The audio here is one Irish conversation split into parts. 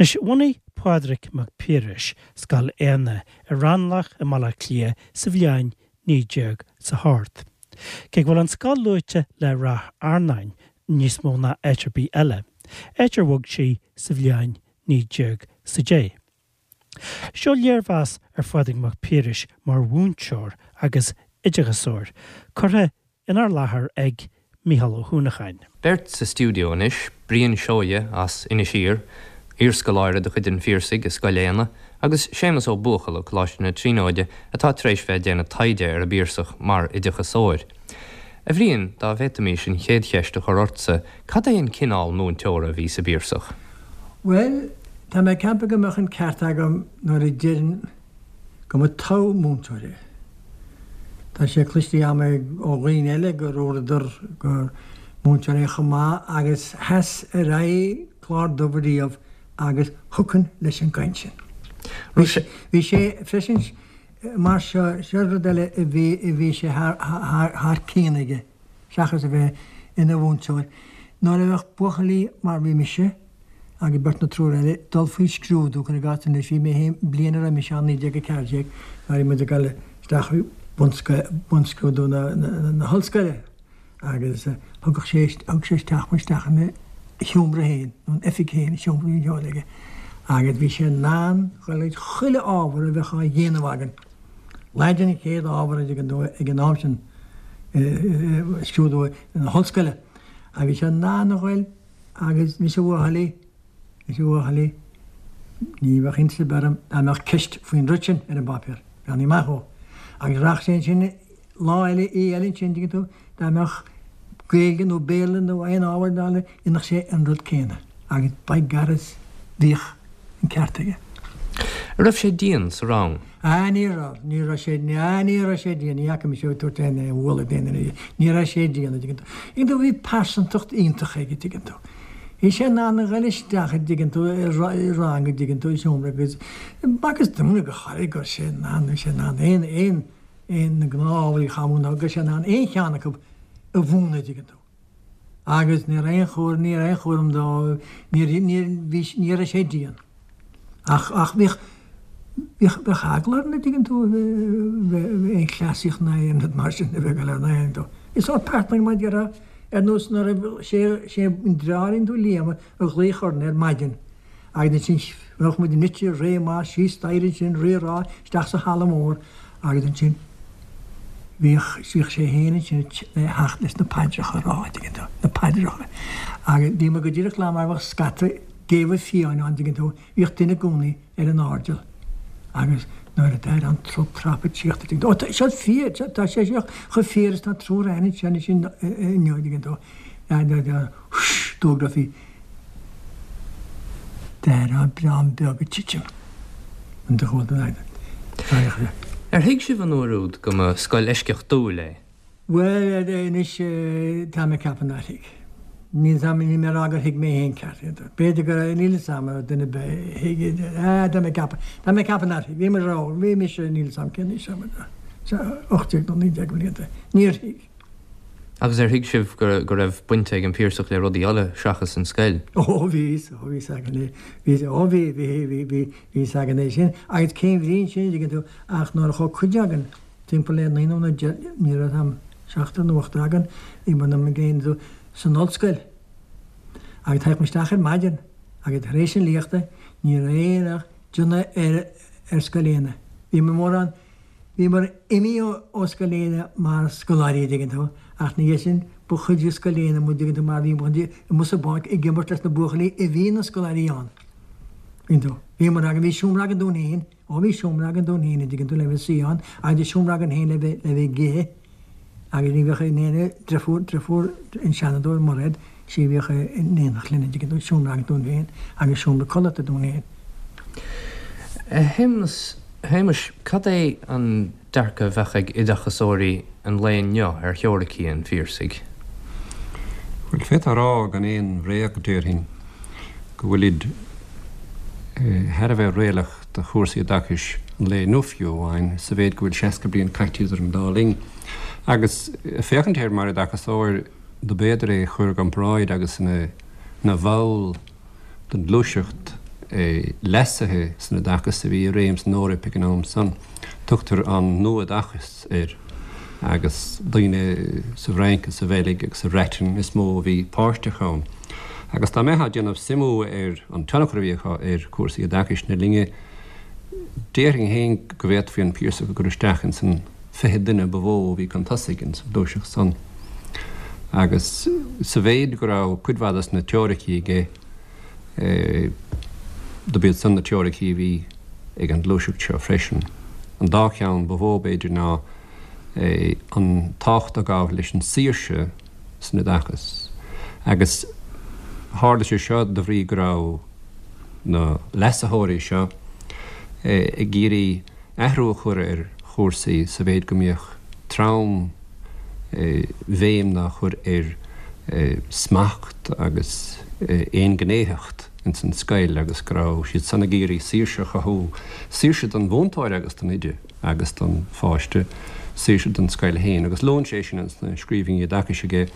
Anois, bhunaigh Pádraig Mac Piarais Scoil Éanna i Raghnallach i mBaile Átha Cliath sa bhliain 19 's a hocht. Cé go bhfuil an scoil luaite le Ráth Fhearnáin níos mó ná áit ar bith eile, áit ar bhog sí sa bhliain 19 's a deich. Seo léirmheas ar Phádraig Mac Piarais mar mhúinteoir agus oideachasóir, curtha inár láthair ag Mícheál Ó hUanacháin. Beirt sa stiúideo anois, Brian Seoighe as Inis Oírr, iarscoláire de chuid an Phiarsaigh i Scoil Éanna, agus Séamus Ó Buachalla ó Coláiste na Tríonóide atá tar éis bheith ag déanamh taighde ar an bPiarsach mar oideachasóir. A Bhriain, dá bhféadfaimis an chéad cheist a chur ortsa, cad é an cineál múinteora a bhí sa bPiarsach? Bhuel, tá mé ag ceapadh go mbeadh an ceart agam nuair a deirim go mba togha múinteoir é. Tá sé cloiste agam ó dhaoine eile go ndúradar gur múinteoir é chomh maith agus sheas ar aghaidh clár dubh riamh agus thiocfainn leis an gcaint sin. Bhí sé freisin mar seo, seo rud eile a bhí a bhí sé thar cionn aige seachas a bheith ina mhúinteoir. Nuair a bheadh buachaillí mar bhí mise, agus beirt nó triúr eile, dul faoi scrúdú, cuir i gcás anois, bhí mé féin, bliain a raibh mise ann, 1914, nuair a bhí muid ag dul isteach faoi bunscrúdú na hollscoile agus thugadh sé, thug sé isteach muid isteach ina sheomra féin, nó an oifig féin, an seomra a bhí aige, agus bhí sé in ann dhul ag chuile ábhar a bheadh á dhéanamh againn. Laidin an chéad ábhar a dtuigeann tú ag an am sin, scrúdú na hollscoile, agus bhí sé in ann a ghoil Agus anois a bhuachaillí, anois a bhuachaillí, ní bheadh iontas ar bith orm dá mbeadh ceist faoin rud sin ar an bpáipéar, breathnaigh amach dhó. Agus rachadh sé ansin lá eile, oíche eile ansin, dtuigeann tú, dá mbeadh Gaeilge nó Béarla nó aon ábhar eile, dhéanfadh sé an rud céanna. Agus by garras bhíodh an ceart aige. An raibh sé dian sa rang? Ah, ní raibh, ní raibh sé, ah, ní raibh sé dian, ní fhaca mise é ag tabhairt aon bhualadh d'aon duine, ní raibh sé dian, a dtuigeann tú. Tuigeann tú, bhí pearsantacht iontach aige, tuigeann tú. Bhí sé in ann a ghoil isteach, a dtuigeann tú, i rang, a dtuigeann tú, i seomra agus, agus dúinne go háirithe go raibh sé in ann, bhí sé in ann aon, aon, aon, na gnáth-ábhair a chamú, go raibh sé in ann aon cheann acu a mhúineadh, a dtuigeann tú. Agus ní raibh aon chúram, ní raibh aon chúram dó, ní, ní, bhí, ní raibh sé dian. Ach, ach bhíodh, bhíodh, bheadh eagla orainn, a' dtuigeann tú, bheith, aon chleasaíocht ná aon rud mar sin a bheith ag dul ar an aon dó. Is sórt pearsanta mar a déarfá, ar nós nuair a, sé, sé an deartháirín tú Liam a ghlaoch orainn ar maidin agus ansin bheadh muid nite réidh amach síos staighre ansin, rí-rá, isteach sa halla mór agus ansin bhíodh, bhíodh sé féin ansin le theacht leis na paidreacha a rá, a' dtuigeann tú, na paidreacha. Agus bhí muid go díreach lá mar bheadh scata géabha fiáin ann, dtuigeann tú, bhíodh duine i gcónaí ar an airdeall agus nuair a d'airigh an trup trap ag tíocht, a' dtuigeann tú, ó tá, seo fíor, tá sé seo chomh fíor is tá triúr againn anseo anois inniu, a' dtuigeann tú, d'fhógrófaí D'airigh dream beag ag titim an de chomhalta an Aire. Ar thuig sibh an uair úd go mba scoil eisceachtúil é? Bhuel, anois, tá mé ag ceapadh nár thuig. Níl 's a'm, níl mé ag rá gur thuig mé féin ceart é. B'fhéidir go raibh, níl 'fhios a'm an raibh duine ar bith a thuig é. Ah, tá mé ag ceapadh, tá mé ag ceapadh nár thuig. Bhí muid ró, bhí mise, níl 'fhios a'm cén aois a raibh, 18 nó 19 blianta. Níor thuig. Agus ar thuig sibh go raibh baint ag an Piarsach le rudaí eile seachas an scoil? Ó bhí, ó bhí 's againn é, bhí, ó bhí, bhí, bhí, bhí, bhí 's againn é sin. Agus cén bhrí ansin, a dtuigeann tú, ach nuair a chuaigh cuid againn, timpeall le naonúr nó deich, ní raibh 's a'm, seachtar nó ochtar againn, bhí muid ag déanamh san ollscoil. Agus thagadh muid isteach ar maidin agus tar éis an léachta ní raibh aon ach déanamh ar, ar Scoil Éanna. Bhí muid mórán, Bhíomar imithe ó Scoil Éanna mar scoláirí, a dtuigeann tú, ach ina dhiaidh sin ba chuid de Scoil Éanna muid, a dtuigeann tú, mar bhí muid amuigh sa bpáirc ag imirt leis na buachaillí a bhí ina scoláirí ann. Tuigeann tú. Bhíomar againn, bhí seomra againn dúinn féin, ó bhí seomra againn dúinn féin, a dtuigeann tú, le bheith suí ann, agus bhí seomra againn féin le bheith, le bheith ag ithe agus ní bheadh in aon driofúr, driofúr an Seanadóir Mairéad, sí a bhíodh in éineacht linn, a dtuigeann tú, seomra againn dúinn féin agus seomra codlata dúinn féin. A Shéamus, Shéamuis, cad é an dearcadh a bheadh ag oideachasóirí an lae inniu ar theoiricí an Phiarsaigh? Bhuel, d'fhéadfá a rá gan aon bhréag, déarfainn, go bhfuilid thar a bheith réalaíoch do chúrsaí oideachais an lae inniu fiú amháin, sa mhéid go bhfuil 60 bliain caite idir an dá linn. Agus féachaint air mar oideachasóir, dob fhéidir é a chur i gcomparáid agus ina bhall den ghluaiseacht. leasuithe san oideachas a bhí i réim san Eoraip ag an am san. Tugtar an Nua-Oideachas air agus daoine sa bhFrainc is sa Bheilg agus sa Bhreatain is mó a bhí páirteach ann. Agus dá mbeifeá ag déanamh suimiú ar an tionchar a bhí acu ar chúrsaí oideachais na linne, déarfainn féin go bhféadfaí an Piarsach a chur isteach ins an 20 duine ba mhó a bhí chun tosaigh ins an ghluaiseacht san. Agus sa mhéid go raibh cuid mhaith des na teoiricí aige, dob iad san na teoiricí a bhí ag an ghluaiseacht seo freisin. An dá cheann ba mhó, b'fhéidir, ná an tábhacht a ghabh leis an saoirse san oideachas. Agus tharla sé seo de bhrí go raibh na leasaitheoirí seo ag iarraidh athrú a chur ar chúrsaí sa mhéid go mbíodh trom bhéim á chur ar smacht agus aonghnéitheacht ins an scoil agus go raibh siad san ag iarraidh saoirse a chothú, saoirse don mhúinteoir agus don oide agus don pháiste, saoirse don scoil féin agus luann sé sin ins na scríbhinní oideachais aige.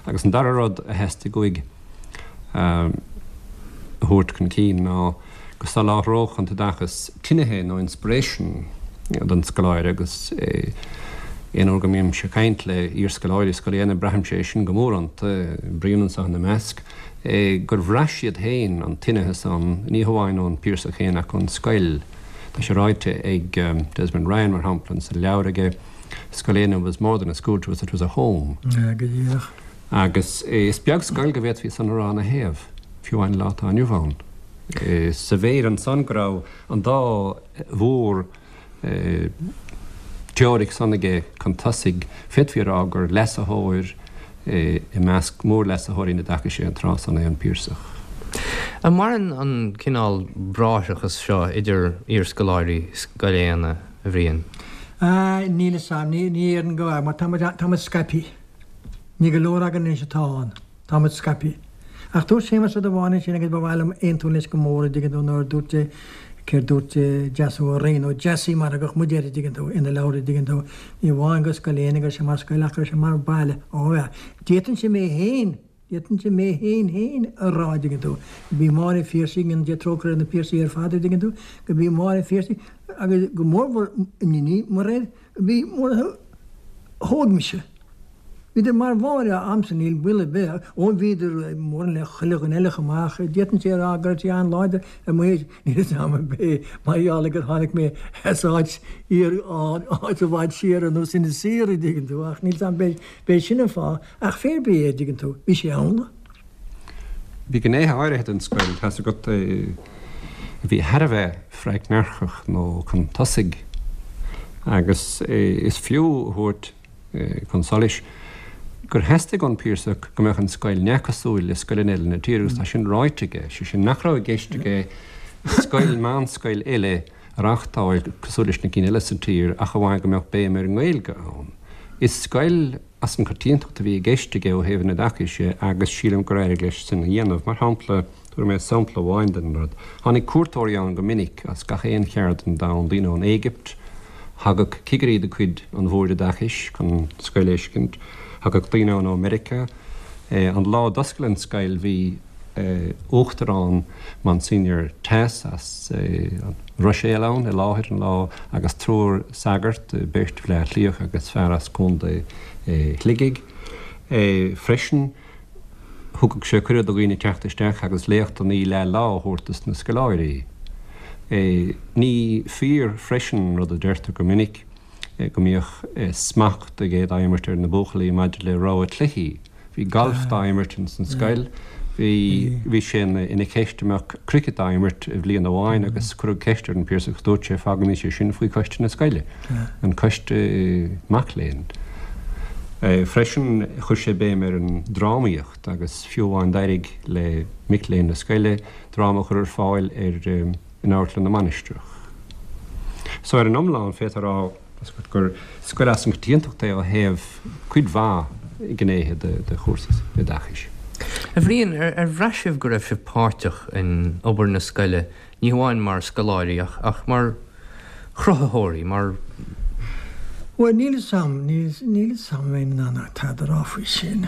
Agus an dara rud a theastaigh uaidh a thabhairt chun cinn ná go soláthródh an t-oideachas tinithe nó inspiration don scoláire agus aon uair go mbímse ag caint le iarscoláirí Scoil Éanna braithimse é sin go mór iontu, Brian anseo ina measc, gur bhraith siad féin an tinithe san, ní hamháin ón Piarsach féin ach ón scoil. Tá sé ráite ag Desmond Ryan mar shampla sa leabhar aige, Scoil Éanna was more than a school to us, it was a home. Go díreach. Agus is beag scoil go bhféadfaí san a rá ina thaobh, fiú amháin lá atá inniu ann. Sa mhéid ansan go raibh an dá mhór teoiric san aige chun tosaigh, féadfaí a rá gur leasaitheoir i measc mórleasaitheoirí an oideachais é an tráth san é an Piarsach. An maireann an cineál bráithreachas seo idir iarscoláirí Scoil Éanna, a Bhriain? Níl 'fhios a'm, ní déarfainn go bhfuil, mar tá muid, tá muid scaipthe. Ní go leor againn anois atá ann. Tá muid scaipthe. Ach dúirt Séamus rud amháin ansin agus ba mhaith liom aontú leis go mór, a dtuigeann tú, nuair a dúirt sé, céard dúirt Deasún Ó Riain, nó Dessie mar a thugadh muid air, a dtuigeann tú, ina leabhar, a dtuigeann tú, ní amháin go Scoil Éanna go raibh sé mar scoil ach go raibh sé mar baile. Ó yeah. D'fhéadfainnse mé féin, d'fhéadfainnse mé féin féin a rá, a dtuigeann tú, go b'í Máire Phiarsaigh, go ndéana Dia trócaire ar na Piarsaigh ar fad, a dtuigeann tú, go b'í Máire Phiarsaigh agus go mórmhór Níní Mairéad, Bhí mar a thóg mise. Bhíodar mar Mháire a'msa, níl baol ar bith. Ó bhíodar mórán le chuile dhuine eile chomh maith ach d'fhéadfainnse a rá go raibh sí an-láidir ar mo thaobh. Níl fhios a'm ab é mar gheall ar gur tháinig mé as áit fhíor, áit i bhfad siar ar nós Inis Oírr, a dtuigeann tú, ach níl fhios a'm ab é sin an fáth ach pé ar bith é, a dtuigeann tú, bhí sé ann. Bhí gnéithe áirithe den scoil, tá's agat, a bhí thar a bheith freagnarchach nó chun tosaigh agus is fiú a thabhairt chun solais gur theastaigh ón Piarsach go mbeadh an scoil neamhchosúil le scoileanna eile na tíre agus tá sin ráite aige, sé sin nach raibh i gceist aige scoil, meánscoil eile a reáchtáil cosúil leis na cinn eile sa tír ach amháin go mbeadh béim ar an nGaeilge ann. Is scoil as an choitiantacht a bhí i gceist aige ó thaobh an oideachais dhe agus sílim gur éirigh leis sin a dhéanamh. Mar shampla, tabharfaidh mé sampla amháin den rud. Tháinig cuairteoirí ann go minic as gach aon cheard den domhan, daoine ón Éigipt, thagadh cigirí de chuid an Bhoird Oideachais chun an scoil a fheiscint, thagadh daoine ann ó Meiriceá. An lá a d'oscail an scoil bhí. Uachtarán Monsignor Tass as an Ruiséal ann i láthair an lá agus triúr sagart, beirt Bhleá Cliathach agus fear as Contae Shligigh. Freisin thugadh sé cuireadh do dhaoine teacht isteach agus léachtanna leath lá a thabhairt dos na scoláirí. Ní fíor freisin an rud a deirtear go minic go mbíodh smacht aige dá imirt ar na buachaillí maidir le rogha cluichí. Bhí galf dá imirt ins an scoil. Bhí bhí sé ina cheist an mbeadh cricket dá imirt i bhliain amháin agus cuireadh ceist ar an Piarsach agus dúirt sé fágaimis é sin faoi choiste na scoile, an coiste mac léinn. Freisin chuir sé béim ar an drámaíocht agus fiú amháin d'éirigh le mic léinn na scoile dráma a chur ar fáil ar in Amharclann na Mainistreach. So ar an iomlán féadfá a rá gur scoil as an gcoitiantacht é ó thaobh cuid mhaith gnéithe de chúrsaí oideachais. A Bhriain, ar bhraith sibh go raibh sibh páirteach in obair na scoile, ní hamháin mar scoláirí ach ach mar chruthaitheoirí, mar. Bhuel, níl 'fhios a'm, níl 'fhios a'm an mbeinn in ann tada a rá faoi sin.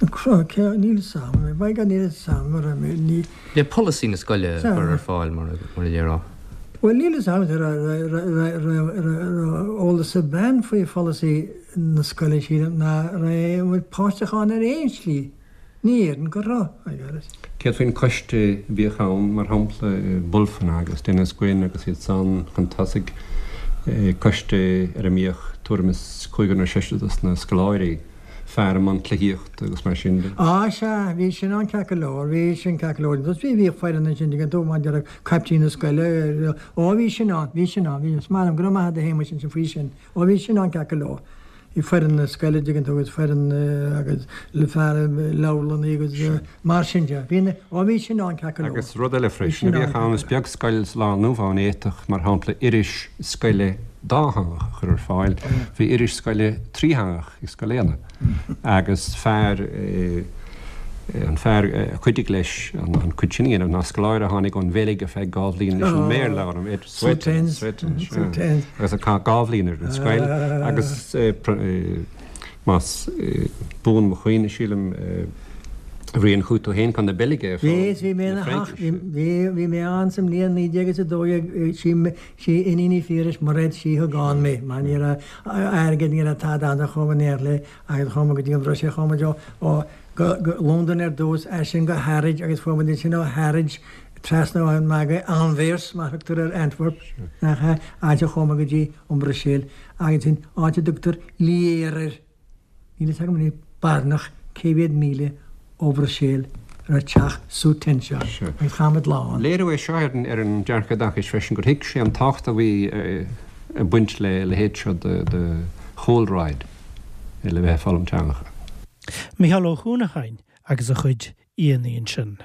Cé, níl 'fhios a'm, by God níl 'fhios a'm a raibh mé, ní. Le polasaí na scoile a chur ar fáil mar a déarfá. Bhuel níl 'fhios a'm raibh eolas ag bean faoi pholasaí na scoile sílim ná raibh muid páirteach ann ar aon slí. Ní déarfainn go raibh, by God. Céard faoin choiste a bhíodh ann, mar shampla Bulfin agus Denis Gwynn agus iad san chun tosaigh, coiste ar a mbíodh tuairim is cúigear nó seisear dos na scoláirí, fear i mbun cluichíochta agus mar sin de. Á sea, bhí sin ann ceart go leor, bhí sin ceart go leor. Agus bhí, bhíodh foireann ansin, tuigeann tú, mar a déarfá, caiptín na scoile, ó bhí sin ann, bhí sin ann, bhí, is maith liom, go raibh maith agat a Shéamuis ansin faoi sin, ó bhí sin ann ceart go leor. Bhí foireann na scoile, dtuigeann tú, agus foireann agus le fear leabharlannaí agus mar sin de. Bhí na, ó bhí sin ann ceart go leor. Agus rud eile freisin a bhíodh ann, is beag scoil sa lá inniu ann a fhéadfadh, mar shampla, iris scoile dátheangach a chur ar fáil. Bhí iris scoile trítheangach ag Scoil Éanna agus fear, an fear a chuidigh leis an chuid sin a dhéanamh ná scoláire a tháinig ón Bheilg ar feadh dhá bhliain leis an mBéarla a fhoghlaim, Ed Sweetens, Sweetens, agus a chaith dhá bhliain ar an scoil agus más buan mo chuimhne, sílim, Bhriain, chuaigh tú féin chun na Beilge ag foghlaim na Fraincise. Bhí, bhí mé ann sa mbliain 1912, sí, sí Iníon Uí Phiarais, Mairéad, sí a thug ann mé, mar ní raibh airgead, ní raibh tada ann, so chuaigh mé in éineacht léi agus chuaigh mé go dtí an Bhruiséil, chuaigh muid ó, ó, go, go Londain ar dtús, as sin go Harwich agus fuair muid ansin ó Harwich trasna an margadh Anvers, mar a thugtar ar Antwerp, nach ea, áit a chuaigh muid go dtí an Bhruiséil agus ansin áit a dtugtar Lier air. Níl a fhios agam anois barainneach cé mhéad míle ó Bhruiséil a raibh teach Soetens seo agus chaith muid lá ann. Léiriú é seo ar an dearcadh oideachais freisin gur thuig sé an tábhacht a bhí ag baint le leithéid seo de chúlráid le bheith ag foghlaim teangacha. Mícheál Ó hUanacháin agus a chuid aíonna ansin.